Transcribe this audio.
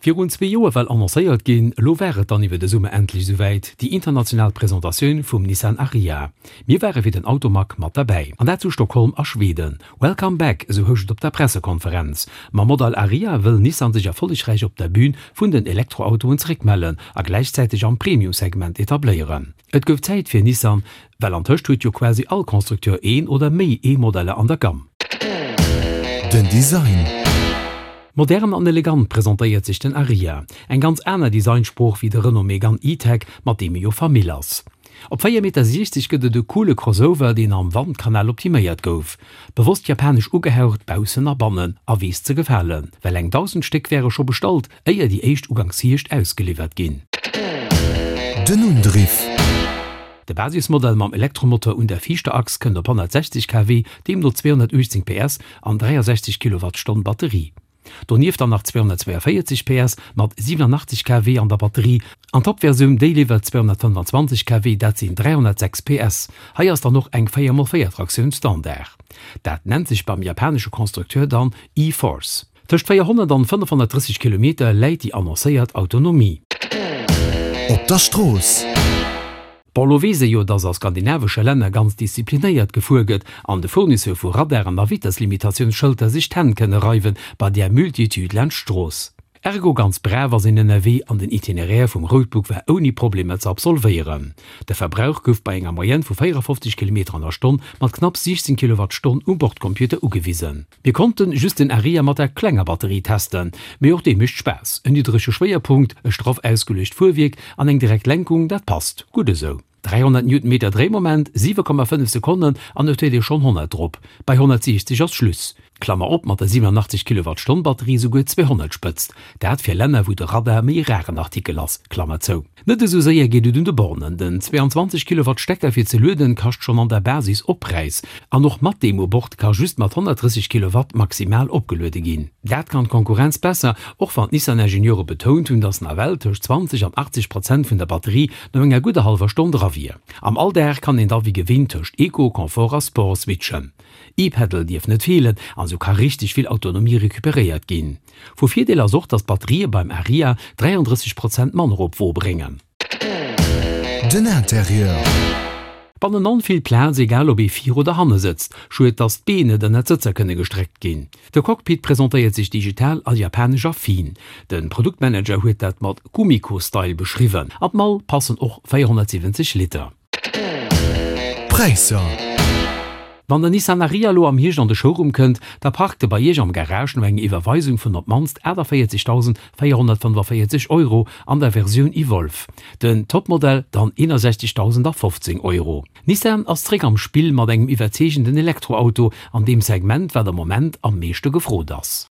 Virun zwee Joer well annoncéiert ginn, elo war et dann iwwer de Summer endlech esouwäit, déi international Presentatioun vum Nissan Ariya. Mir ware fir den Automag mat derbäi, an dat zu Stockholm a Schweden. Welcome back, esou housch et op der Pressekonferenz. Mam Modell Ariya wëll Nissan sech erfollegräich op der Bün vun den Elektroautoen zeréckmellen a gläichzäiteg am Premium-Segment etabléieren. Et gouf Zäit fir Nissan, well antëscht huet jo quasi all Constructeur een oder méi E-Modeller an der Gamm. Den Design. Modern an elegant presentéiert sech den Ariya. Eng ganz aner Designsprooch wéi de Renault Megane E-Tech, mat deem e jo Famill ass. Op 4,60 Meter gëtt et e coole Crossover, deen am Wandkanal optiméiert gouf. Bewosst japanesch ugehaucht, baussen a bannen, a weess ze gefalen, well eng 1.000 Stéck wäre scho bestallt, éier déi éischt uganks Hierscht ausgeliwwert ginn. Den Undriff. De Basismodell mam Elektromotor un der viischter Achs kënnt op 160 kW, deemno 218 PS an 63 Kilowattstonn Batterie. Donieft dann nach 242 PS mat 87 kW an der Batterie an d'Top-Versioun, déi liwwert 225 kW, dat sinn 306 PS. Hei ass dann och eng 4 x 4 Traktioun Standard. Dat nennt sech beim japanesche Constructeur dann e-Force. Tëscht 400 an 530 Kilometer läit déi annoncéiert Autonomie. Op der Strooss. Bon, lo weess ee jo, dass a skandinavesche Länner ganz disziplinéiert gefuer gëtt an de Fournisseur vu Radaren a Vitesslimitatiounsschëlter sech d'Hänn kënne reiwen bei där Multitude laanscht d'Strooss. Ergo ganz brav ass een ënnerwee an den Itinéraire vum Roadbook war ouni Problemer ze absolvéieren. De Verbrauch gouf bei enger Moyenne vu 54 Kilometer an der Stonn mat knapps 16 Kilowattstonn um Bordcomputer ugewisen. Mir konnten just den Ariya mat der klenger Batterie testen, mee och dee mécht Spaass. En niddrege Schwéierpunkt, e straff ausgeluecht Fuerwierk an eng direkt Lenkung, dat passt gutt esou. 300 Newtonmeter Dréimoment, 7,5 Sekonnen an et huet ee schonn 100 drop. Bei 160 ass Schluss. Klammer op, mat der 87 Kilowattstonn Batterie souguer 200 Spëtzt, dat fir Länner wou de Radar méi e raren Artikel ass, Klammer zou. Net esou séier geet et un de Bornen. Den 22 Kilowatt Stecker fir ze lueden kascht schonn an der Basis Oppräis. An och mat deem u Bord ka just mat 130 Kilowatt maximal opgeluede ginn. Dat kann d'Konkurrenz besser, och wann d'Nissan-Ingenieure betount hunn, datt nawell tëscht 20 an 80 Prozent vun der Batterie no enger gudder hallwer Stonn dra wier. Am Alldag kann een da wéi gewinnt tëscht Eco, Confort a Sport switchen. E-Pedal dierf net feelen an esou ka richteg vill Autonomie recuperéiert ginn. Vu Virdeel ass och, dass d'Batterië beim Ariya 33 Prozent manner op d'Wo bréngen. Den Interieur. Bannenan vill Plaz, egal ob ee vir oder hanne sëtzt. Schued, dass d'Been net ënnert d'Sëtzer kënne gestreckt ginn. De Cockpit presentéiert sech digital a japanesch affin. De Produktmanager huet dat mat Kumiko-Style beschriwwen. An d'Mall passen och 470 Liter. Präisser. Wann den Nissan Ariya elo am Hierscht an de Showroom kënnt, da parkt e bei Iech am Garage no enger Iwwerweisung vun op d'mannst 48.445 Euro an der Versioun Evolve, den Topmodell dann 61.015 Euro. Nissan ass zréck am Spill mat engem iwwerzeegenden Elektroauto an deem Segment, wat am Moment am meeschte gefrot ass.